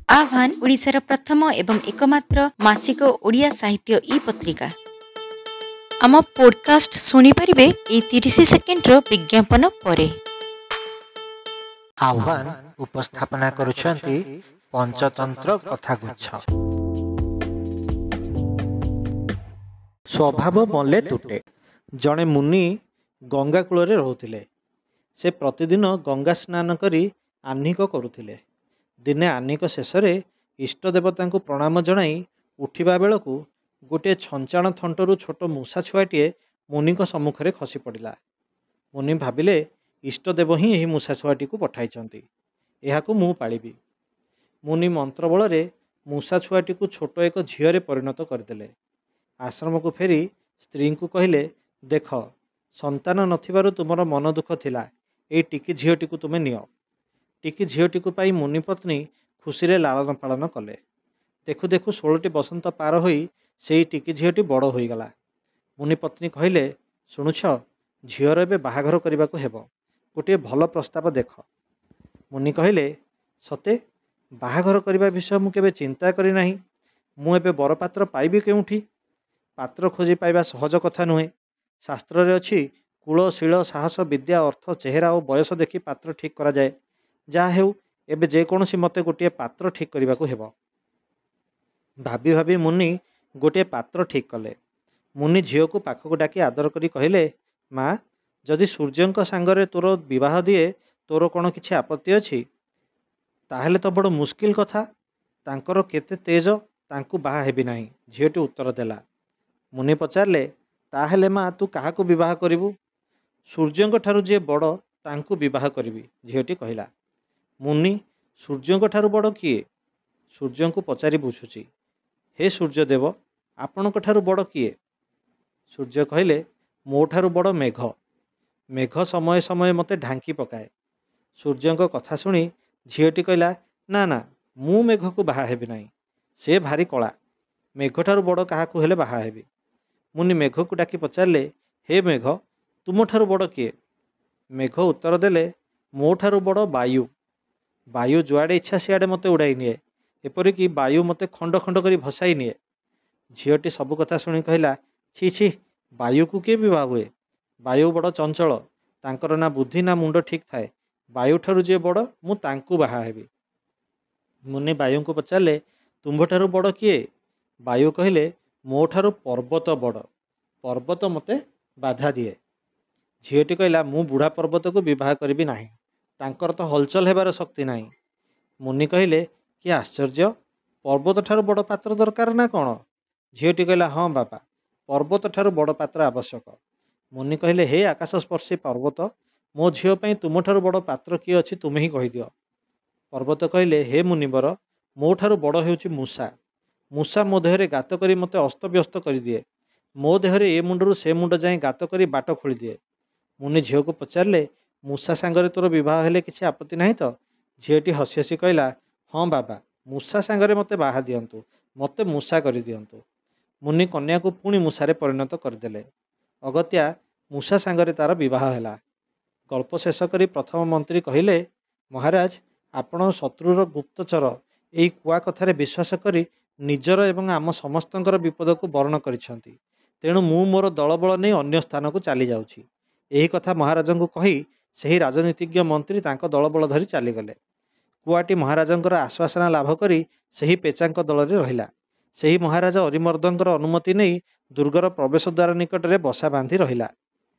ଆହ୍ୱାନ ଓଡ଼ିଶାର ପ୍ରଥମ ଏବଂ ଏକମାତ୍ର ମାସିକ ଓଡ଼ିଆ ସାହିତ୍ୟ ଇ ପତ୍ରିକା। ଆମ ପୋଡକାଷ୍ଟ ଶୁଣିପାରିବେ ଏଇ 30 ସେକେଣ୍ଡର ବିଜ୍ଞାପନ ପରେ। ଆହ୍ୱାନ ଉପସ୍ଥାପନା କରୁଛନ୍ତି ପଞ୍ଚତନ୍ତ୍ର କଥାଗୁଚ୍ଛ। ସ୍ୱଭାବ ମଲେ ତୁଟେ। ଜଣେ ମୁନି ଗଙ୍ଗା କୂଳରେ ରହୁଥିଲେ। ସେ ପ୍ରତିଦିନ ଗଙ୍ଗା ସ୍ନାନ କରି ଆହ୍ନିକ କରୁଥିଲେ। ଦିନେ ଆହ୍ନିକ ଶେଷରେ ଇଷ୍ଟ ଦେବତାଙ୍କୁ ପ୍ରଣାମ ଜଣାଇ ଉଠିବା ବେଳକୁ ଗୋଟିଏ ଛଞ୍ଚାଣ ଥଣ୍ଟରୁ ଛୋଟ ମୂଷା ଛୁଆଟିଏ ମୁନିଙ୍କ ସମ୍ମୁଖରେ ଖସି ପଡ଼ିଲା। ମୁନି ଭାବିଲେ, ଇଷ୍ଟଦେବ ହିଁ ଏହି ମୂଷା ଛୁଆଟିକୁ ପଠାଇଛନ୍ତି, ଏହାକୁ ମୁଁ ପାଳିବି। ମୁନି ମନ୍ତ୍ର ବଳରେ ମୂଷା ଛୁଆଟିକୁ ଛୋଟ ଏକ ଝିଅରେ ପରିଣତ କରିଦେଲେ। ଆଶ୍ରମକୁ ଫେରି ସ୍ତ୍ରୀଙ୍କୁ କହିଲେ, ଦେଖ, ସନ୍ତାନ ନଥିବାରୁ ତୁମର ମନ ଦୁଃଖ ଥିଲା, ଏଇ ଟିକି ଝିଅଟିକୁ ତୁମେ ନିଅ। ଟିକି ଝିଅଟିକୁ ପାଇ ମୁନି ପତ୍ନୀ ଖୁସିରେ ଲାଳନ ପାଳନ କଲେ। ଦେଖୁ ଦେଖୁ 16ଟି ବସନ୍ତ ପାର ହୋଇ ସେଇ ଟିକି ଝିଅଟି ବଡ଼ ହୋଇଗଲା। ମୁନି ପତ୍ନୀ କହିଲେ, ଶୁଣୁଛ, ଝିଅର ଏବେ ବାହାଘର କରିବାକୁ ହେବ, ଗୋଟିଏ ଭଲ ପ୍ରସ୍ତାବ ଦେଖ। ମୁନି କହିଲେ, ସତେ ବାହାଘର କରିବା ବିଷୟ ମୁଁ କେବେ ଚିନ୍ତା କରିନାହିଁ। ମୁଁ ଏବେ ବରପାତ୍ର ପାଇବି କେଉଁଠି? ପାତ୍ର ଖୋଜି ପାଇବା ସହଜ କଥା ନୁହେଁ। ଶାସ୍ତ୍ରରେ ଅଛି, କୁଳ, ଶୀଳ, ସାହସ, ବିଦ୍ୟା, ଅର୍ଥ, ଚେହେରା ଓ ବୟସ ଦେଖି ପାତ୍ର ଠିକ୍ କରାଯାଏ। ଯାହା ହେଉ, ଏବେ ଯେକୌଣସି ମତେ ଗୋଟିଏ ପାତ୍ର ଠିକ୍ କରିବାକୁ ହେବ। ଭାବି ଭାବି ମୁନି ଗୋଟିଏ ପାତ୍ର ଠିକ୍ କଲେ। ମୁନି ଝିଅକୁ ପାଖକୁ ଡାକି ଆଦର କରି କହିଲେ, ମା, ଯଦି ସୂର୍ଯ୍ୟଙ୍କ ସାଙ୍ଗରେ ତୋର ବିବାହ ଦିଏ, ତୋର କ'ଣ କିଛି ଆପତ୍ତି ଅଛି? ତାହେଲେ ତ ବଡ଼ ମୁସ୍କିଲ କଥା। ତାଙ୍କର କେତେ ତେଜ, ତାଙ୍କୁ ବାହା ହେବି ନାହିଁ, ଝିଅଟି ଉତ୍ତର ଦେଲା। ମୁନି ପଚାରିଲେ, ତାହେଲେ ମା, ତୁ କାହାକୁ ବିବାହ କରିବୁ? ସୂର୍ଯ୍ୟଙ୍କ ଠାରୁ ଯିଏ ବଡ଼ ତାଙ୍କୁ ବିବାହ କରିବି, ଝିଅଟି କହିଲା। ମୁନି, ସୂର୍ଯ୍ୟଙ୍କ ଠାରୁ ବଡ଼ କିଏ? ସୂର୍ଯ୍ୟଙ୍କୁ ପଚାରି ବୁଝୁଛି। ହେ ସୂର୍ଯ୍ୟଦେବ, ଆପଣଙ୍କ ଠାରୁ ବଡ଼ କିଏ? ସୂର୍ଯ୍ୟ କହିଲେ, ମୋ ଠାରୁ ବଡ଼ ମେଘ। ମେଘ ସମୟେ ସମୟେ ମୋତେ ଢାଙ୍କି ପକାଏ। ସୂର୍ଯ୍ୟଙ୍କ କଥା ଶୁଣି ଝିଅଟି କହିଲା, ନା ନା, ମୁଁ ମେଘକୁ ବାହା ହେବି ନାହିଁ, ସେ ଭାରି କଳା। ମେଘଠାରୁ ବଡ଼ କାହାକୁ ହେଲେ ବାହା ହେବି। ମୁନି ମେଘକୁ ଡାକି ପଚାରିଲେ, ହେ ମେଘ, ତୁମଠାରୁ ବଡ଼ କିଏ? ମେଘ ଉତ୍ତର ଦେଲେ, ମୋ ଠାରୁ ବଡ଼ ବାୟୁ। ବାୟୁ ଯୁଆଡ଼େ ଇଚ୍ଛା ସିଆଡ଼େ ମୋତେ ଉଡ଼ାଇ ନିଏ, ଏପରିକି ବାୟୁ ମୋତେ ଖଣ୍ଡ ଖଣ୍ଡ କରି ଭସାଇ ନିଏ। ଝିଅଟି ସବୁ କଥା ଶୁଣି କହିଲା, ଛି ଛି, ବାୟୁକୁ କିଏ ବିବାହ ହୁଏ? ବାୟୁ ବଡ଼ ଚଞ୍ଚଳ, ତାଙ୍କର ନା ବୁଦ୍ଧି ନା ମୁଣ୍ଡ ଠିକ୍ ଥାଏ। ବାୟୁଠାରୁ ଯିଏ ବଡ଼ ମୁଁ ତାଙ୍କୁ ବାହା ହେବି। ମୁନି ବାୟୁଙ୍କୁ ପଚାରିଲେ, ତୁମ୍ଭଠାରୁ ବଡ଼ କିଏ? ବାୟୁ କହିଲେ, ମୋ ଠାରୁ ପର୍ବତ ବଡ଼, ପର୍ବତ ମୋତେ ବାଧା ଦିଏ। ଝିଅଟି କହିଲା, ମୁଁ ବୁଢ଼ା ପର୍ବତକୁ ବିବାହ କରିବି ନାହିଁ, ତାଙ୍କର ତ ହଲଚଲ ହେବାର ଶକ୍ତି ନାହିଁ। ମୁନି କହିଲେ, କି ଆଶ୍ଚର୍ଯ୍ୟ, ପର୍ବତ ଠାରୁ ବଡ଼ ପାତ୍ର ଦରକାର ନା କ'ଣ? ଝିଅଟି କହିଲା, ହଁ ବାପା, ପର୍ବତ ଠାରୁ ବଡ଼ ପାତ୍ର ଆବଶ୍ୟକ। ମୁନି କହିଲେ, ହେ ଆକାଶସ୍ପର୍ଶୀ ପର୍ବତ, ମୋ ଝିଅ ପାଇଁ ତୁମଠାରୁ ବଡ଼ ପାତ୍ର କିଏ ଅଛି ତୁମେ ହିଁ କହିଦିଅ। ପର୍ବତ କହିଲେ, ହେ ମୁନିବର, ମୋ ଠାରୁ ବଡ଼ ହେଉଛି ମୂଷା। ମୂଷା ମୋ ଦେହରେ ଗାତ କରି ମୋତେ ଅସ୍ତବ୍ୟସ୍ତ କରିଦିଏ। ମୋ ଦେହରେ ଏ ମୁଣ୍ଡରୁ ସେ ମୁଣ୍ଡ ଯାଏଁ ଗାତ କରି ବାଟ ଖୋଳିଦିଏ। ମୁନି ଝିଅକୁ ପଚାରିଲେ, ମୂଷା ସାଙ୍ଗରେ ତୋର ବିବାହ ହେଲେ କିଛି ଆପତ୍ତି ନାହିଁ ତ? ଝିଅଟି ହସି ହସି କହିଲା, ହଁ ବାବା, ମୂଷା ସାଙ୍ଗରେ ମୋତେ ବାହା ଦିଅନ୍ତୁ, ମୋତେ ମୂଷା କରିଦିଅନ୍ତୁ। ମୁନି କନ୍ୟାକୁ ପୁଣି ମୂଷାରେ ପରିଣତ କରିଦେଲେ। ଅଗତ୍ୟା ମୂଷା ସାଙ୍ଗରେ ତାର ବିବାହ ହେଲା। ଗଳ୍ପ ଶେଷ କରି ପ୍ରଥମ ମନ୍ତ୍ରୀ କହିଲେ, ମହାରାଜ, ଆପଣ ଶତ୍ରୁର ଗୁପ୍ତଚର ଏଇ କୁଆ କଥାରେ ବିଶ୍ୱାସ କରି ନିଜର ଏବଂ ଆମ ସମସ୍ତଙ୍କର ବିପଦକୁ ବରଣ କରିଛନ୍ତି। ତେଣୁ ମୁଁ ମୋର ଦଳବଳ ନେଇ ଅନ୍ୟ ସ୍ଥାନକୁ ଚାଲି ଯାଉଛି। ଏହି କଥା ମହାରାଜଙ୍କୁ କହି ସେହି ରାଜନୀତିଜ୍ଞ ମନ୍ତ୍ରୀ ତାଙ୍କ ଦଳବଳ ଧରି ଚାଲିଗଲେ। କୁଆଟି ମହାରାଜଙ୍କର ଆଶ୍ୱାସନା ଲାଭ କରି ସେହି ପେଚାଙ୍କ ଦଳରେ ରହିଲା। ସେହି ମହାରାଜ ଅରିମର୍ଦ୍ଦଙ୍କର ଅନୁମତି ନେଇ ଦୁର୍ଗର ପ୍ରବେଶ ଦ୍ୱାର ନିକଟରେ ବସା ବାନ୍ଧି ରହିଲା।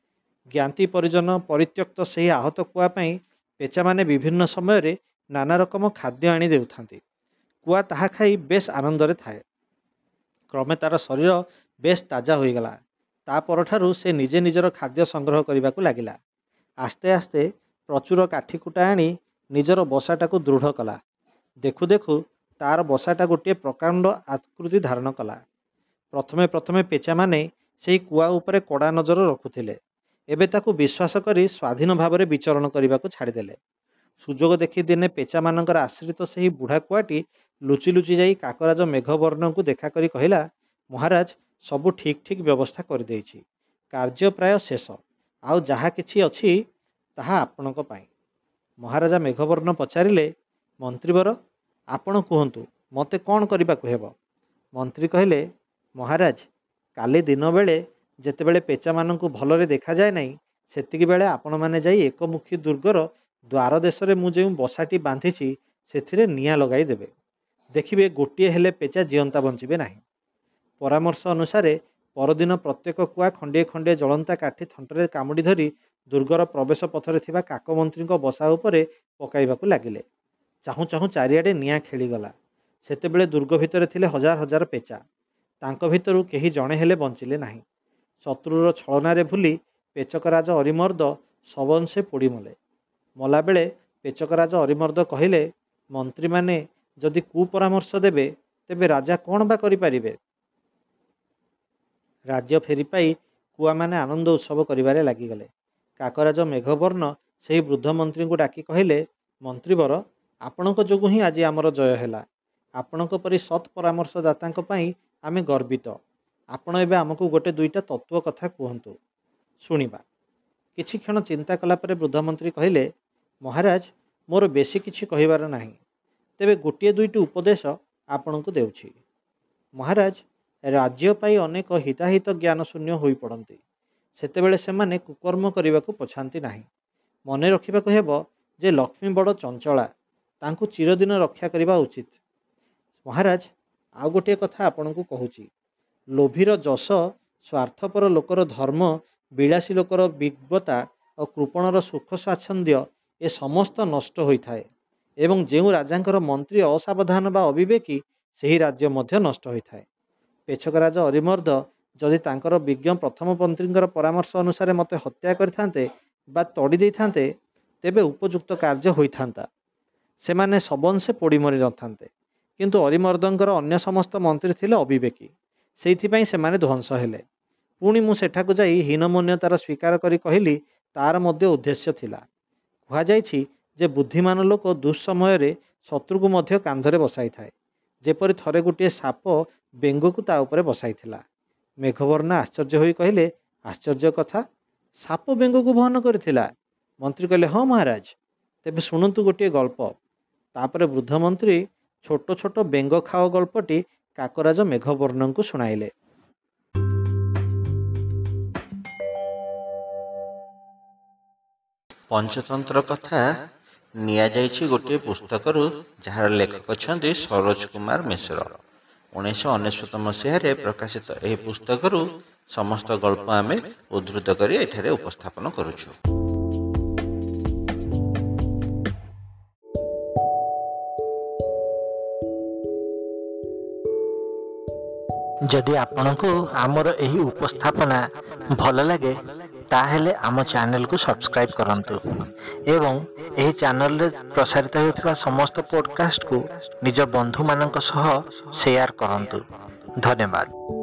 ଜ୍ଞାତି ପରିଜନ ପରିତ୍ୟକ୍ତ ସେହି ଆହତ କୁଆ ପାଇଁ ପେଚାମାନେ ବିଭିନ୍ନ ସମୟରେ ନାନା ରକମ ଖାଦ୍ୟ ଆଣି ଦେଉଥାନ୍ତି। କୁଆ ତାହା ଖାଇ ବେଶ ଆନନ୍ଦରେ ଥାଏ। କ୍ରମେ ତାର ଶରୀର ବେଶ ତାଜା ହୋଇଗଲା। ତା ପରଠାରୁ ସେ ନିଜେ ନିଜର ଖାଦ୍ୟ ସଂଗ୍ରହ କରିବାକୁ ଲାଗିଲା। ଆସ୍ତେ ଆସ୍ତେ ପ୍ରଚୁର କାଠିକୁଟା ଆଣି ନିଜର ବସାଟାକୁ ଦୃଢ଼ କଲା। ଦେଖୁ ଦେଖୁ ତାର ବସାଟା ଗୋଟିଏ ପ୍ରକାଣ୍ଡ ଆକୃତି ଧାରଣ କଲା। ପ୍ରଥମେ ପ୍ରଥମେ ପେଚାମାନେ ସେହି କୁଆ ଉପରେ କଡ଼ା ନଜର ରଖୁଥିଲେ। ଏବେ ତାକୁ ବିଶ୍ୱାସ କରି ସ୍ୱାଧୀନ ଭାବରେ ବିଚରଣ କରିବାକୁ ଛାଡ଼ିଦେଲେ। ସୁଯୋଗ ଦେଖି ଦିନେ ପେଚାମାନଙ୍କର ଆଶ୍ରିତ ସେହି ବୁଢ଼ା କୁଆଟି ଲୁଚି ଲୁଚି ଯାଇ କାକରାଜ ମେଘବର୍ଣ୍ଣଙ୍କୁ ଦେଖା କରି କହିଲା, ମହାରାଜ, ସବୁ ଠିକ୍ ଠିକ୍ ବ୍ୟବସ୍ଥା କରିଦେଇଛି, କାର୍ଯ୍ୟ ପ୍ରାୟ ଶେଷ, ଆଉ ଯାହା କିଛି ଅଛି ତାହା ଆପଣଙ୍କ ପାଇଁ। ମହାରାଜା ମେଘବର୍ଣ୍ଣ ପଚାରିଲେ, ମନ୍ତ୍ରୀବର, ଆପଣ କୁହନ୍ତୁ, ମୋତେ କ'ଣ କରିବାକୁ ହେବ? ମନ୍ତ୍ରୀ କହିଲେ, ମହାରାଜ, କାଲି ଦିନବେଳେ ଯେତେବେଳେ ପେଚାମାନଙ୍କୁ ଭଲରେ ଦେଖାଯାଏ ନାହିଁ, ସେତିକିବେଳେ ଆପଣମାନେ ଯାଇ ଏକମୁଖୀ ଦୁର୍ଗର ଦ୍ୱାର ଦେଶରେ ମୁଁ ଯେଉଁ ବସାଟି ବାନ୍ଧିଛି ସେଥିରେ ନିଆଁ ଲଗାଇ ଦେବେ। ଦେଖିବେ ଗୋଟିଏ ହେଲେ ପେଚା ଜିଅନ୍ତା ବଞ୍ଚିବେ ନାହିଁ। ପରାମର୍ଶ ଅନୁସାରେ ପରଦିନ ପ୍ରତ୍ୟେକ କୁଆ ଖଣ୍ଡିଏ ଖଣ୍ଡିଏ ଜଳନ୍ତା କାଠି ଥଣ୍ଟରେ କାମୁଡ଼ି ଧରି ଦୁର୍ଗର ପ୍ରବେଶ ପଥରେ ଥିବା କାକମନ୍ତ୍ରୀଙ୍କ ବସା ଉପରେ ପକାଇବାକୁ ଲାଗିଲେ। ଚାହୁଁ ଚାହୁଁ ଚାରିଆଡ଼େ ନିଆଁ ଖେଳିଗଲା। ସେତେବେଳେ ଦୁର୍ଗ ଭିତରେ ଥିଲେ ହଜାର ହଜାର ପେଚା। ତାଙ୍କ ଭିତରୁ କେହି ଜଣେ ହେଲେ ବଞ୍ଚିଲେ ନାହିଁ। ଶତ୍ରୁର ଛଳନାରେ ଭୁଲି ପେଚକରାଜ ଅରିମର୍ଦ୍ଦ ସବଂଶେ ପୋଡ଼ିମଲେ। ମଲାବେଳେ ପେଚକରାଜ ଅରିମର୍ଦ୍ଦ କହିଲେ, ମନ୍ତ୍ରୀମାନେ ଯଦି କୁପରାମର୍ଶ ଦେବେ ତେବେ ରାଜା କ'ଣ ବା କରିପାରିବେ? ରାଜ୍ୟ ଫେରି ପାଇ କୁଆମାନେ ଆନନ୍ଦ ଉତ୍ସବ କରିବାରେ ଲାଗିଗଲେ। କାକରାଜ ମେଘବର୍ଣ୍ଣ ସେହି ବୃଦ୍ଧ ମନ୍ତ୍ରୀଙ୍କୁ ଡାକି କହିଲେ, ମନ୍ତ୍ରୀବର, ଆପଣଙ୍କ ଯୋଗୁଁ ହିଁ ଆଜି ଆମର ଜୟ ହେଲା। ଆପଣଙ୍କ ପରି ସତ୍ ପରାମର୍ଶଦାତାଙ୍କ ପାଇଁ ଆମେ ଗର୍ବିତ। ଆପଣ ଏବେ ଆମକୁ ଗୋଟେ ଦୁଇଟା ତତ୍ତ୍ୱ କଥା କୁହନ୍ତୁ, ଶୁଣିବା। କିଛି କ୍ଷଣ ଚିନ୍ତା କଲା ପରେ ବୃଦ୍ଧମନ୍ତ୍ରୀ କହିଲେ, ମହାରାଜ, ମୋର ବେଶୀ କିଛି କହିବାର ନାହିଁ, ତେବେ ଗୋଟିଏ ଦୁଇଟି ଉପଦେଶ ଆପଣଙ୍କୁ ଦେଉଛି। ମହାରାଜ, ରାଜ୍ୟ ପାଇ ଅନେକ ହିତାହିତ ଜ୍ଞାନ ଶୂନ୍ୟ ହୋଇପଡ଼ନ୍ତି। ସେତେବେଳେ ସେମାନେ କୁକର୍ମ କରିବାକୁ ପଛାନ୍ତି ନାହିଁ। ମନେ ରଖିବାକୁ ହେବ ଯେ ଲକ୍ଷ୍ମୀ ବଡ଼ ଚଞ୍ଚଳା, ତାଙ୍କୁ ଚିରଦିନ ରକ୍ଷା କରିବା ଉଚିତ। ମହାରାଜ, ଆଉ ଗୋଟିଏ କଥା ଆପଣଙ୍କୁ କହୁଛି। ଲୋଭୀର ଯଶ, ସ୍ୱାର୍ଥପର ଲୋକର ଧର୍ମ, ବିଳାସୀ ଲୋକର ବିଜ୍ଞତା ଓ କୃପଣର ସୁଖ ସ୍ୱାଚ୍ଛନ୍ଦ୍ୟ ଏ ସମସ୍ତ ନଷ୍ଟ ହୋଇଥାଏ ଏବଂ ଯେଉଁ ରାଜାଙ୍କର ମନ୍ତ୍ରୀ ଅସାବଧାନ ବା ଅବିବେକୀ, ସେହି ରାଜ୍ୟ ମଧ୍ୟ ନଷ୍ଟ ହୋଇଥାଏ। ପେଛକରାଜ ଅରିମର୍ଦ୍ଦ ଯଦି ତାଙ୍କର ବିଜ୍ଞ ପ୍ରଥମ ମନ୍ତ୍ରୀଙ୍କର ପରାମର୍ଶ ଅନୁସାରେ ମୋତେ ହତ୍ୟା କରିଥାନ୍ତେ ବା ତଡ଼ି ଦେଇଥାନ୍ତେ, ତେବେ ଉପଯୁକ୍ତ କାର୍ଯ୍ୟ ହୋଇଥାନ୍ତା। ସେମାନେ ସବଂଶେ ପୋଡ଼ି ମରି ନଥାନ୍ତେ। କିନ୍ତୁ ଅରିମର୍ଦ୍ଦଙ୍କର ଅନ୍ୟ ସମସ୍ତ ମନ୍ତ୍ରୀ ଥିଲେ ଅବିବେକୀ, ସେଇଥିପାଇଁ ସେମାନେ ଧ୍ୱଂସ ହେଲେ। ପୁଣି ମୁଁ ସେଠାକୁ ଯାଇ ହୀନମନ୍ୟତାର ସ୍ୱୀକାର କରି କହିଲି, ତାର ମଧ୍ୟ ଉଦ୍ଦେଶ୍ୟ ଥିଲା। କୁହାଯାଇଛି ଯେ ବୁଦ୍ଧିମାନ ଲୋକ ଦୁଃସମୟରେ ଶତ୍ରୁକୁ ମଧ୍ୟ କାନ୍ଧରେ ବସାଇଥାଏ, ଯେପରି ଥରେ ଗୋଟିଏ ସାପ ବେଙ୍ଗକୁ ତା ଉପରେ ବସାଇଥିଲା। ମେଘବର୍ଣ୍ଣ ଆଶ୍ଚର୍ଯ୍ୟ ହୋଇ କହିଲେ, ଆଶ୍ଚର୍ଯ୍ୟ କଥା, ସାପ ବେଙ୍ଗକୁ ବହନ କରିଥିଲା? ମନ୍ତ୍ରୀ କହିଲେ, ହଁ ମହାରାଜ, ତେବେ ଶୁଣନ୍ତୁ ଗୋଟିଏ ଗଳ୍ପ। ତାପରେ ବୃଦ୍ଧ ମନ୍ତ୍ରୀ ଛୋଟ ଛୋଟ ବେଙ୍ଗ ଖାଅ ଗଳ୍ପଟି କାକରାଜ ମେଘବର୍ଣ୍ଣଙ୍କୁ ଶୁଣାଇଲେ। ପଞ୍ଚତନ୍ତ୍ର କଥା ନିଆଯାଇଛି ଗୋଟିଏ ପୁସ୍ତକରୁ, ଯାହାର ଲେଖକ ଅଛନ୍ତି ସରୋଜ କୁମାର ମିଶ୍ର। 1999 ମସିହାରେ ପ୍ରକାଶିତ ଏହି ପୁସ୍ତକରୁ ସମସ୍ତ ଗଳ୍ପ ଆମେ ଉଦ୍ଧୃତ କରି ଏଠାରେ ଉପସ୍ଥାପନ କରୁଛୁ। ଯଦି ଆପଣଙ୍କୁ ଆମର ଏହି ଉପସ୍ଥାପନା ଭଲ ଲାଗେ, ତାହେଲେ ଆମ ଚ୍ୟାନେଲକୁ ସବସ୍କ୍ରାଇବ୍ କରନ୍ତୁ ଏବଂ ଏହି ଚ୍ୟାନେଲରେ ପ୍ରସାରିତ ହେଉଥିବା ସମସ୍ତ ପଡ଼କାଷ୍ଟକୁ ନିଜ ବନ୍ଧୁମାନଙ୍କ ସହ ସେୟାର କରନ୍ତୁ। ଧନ୍ୟବାଦ।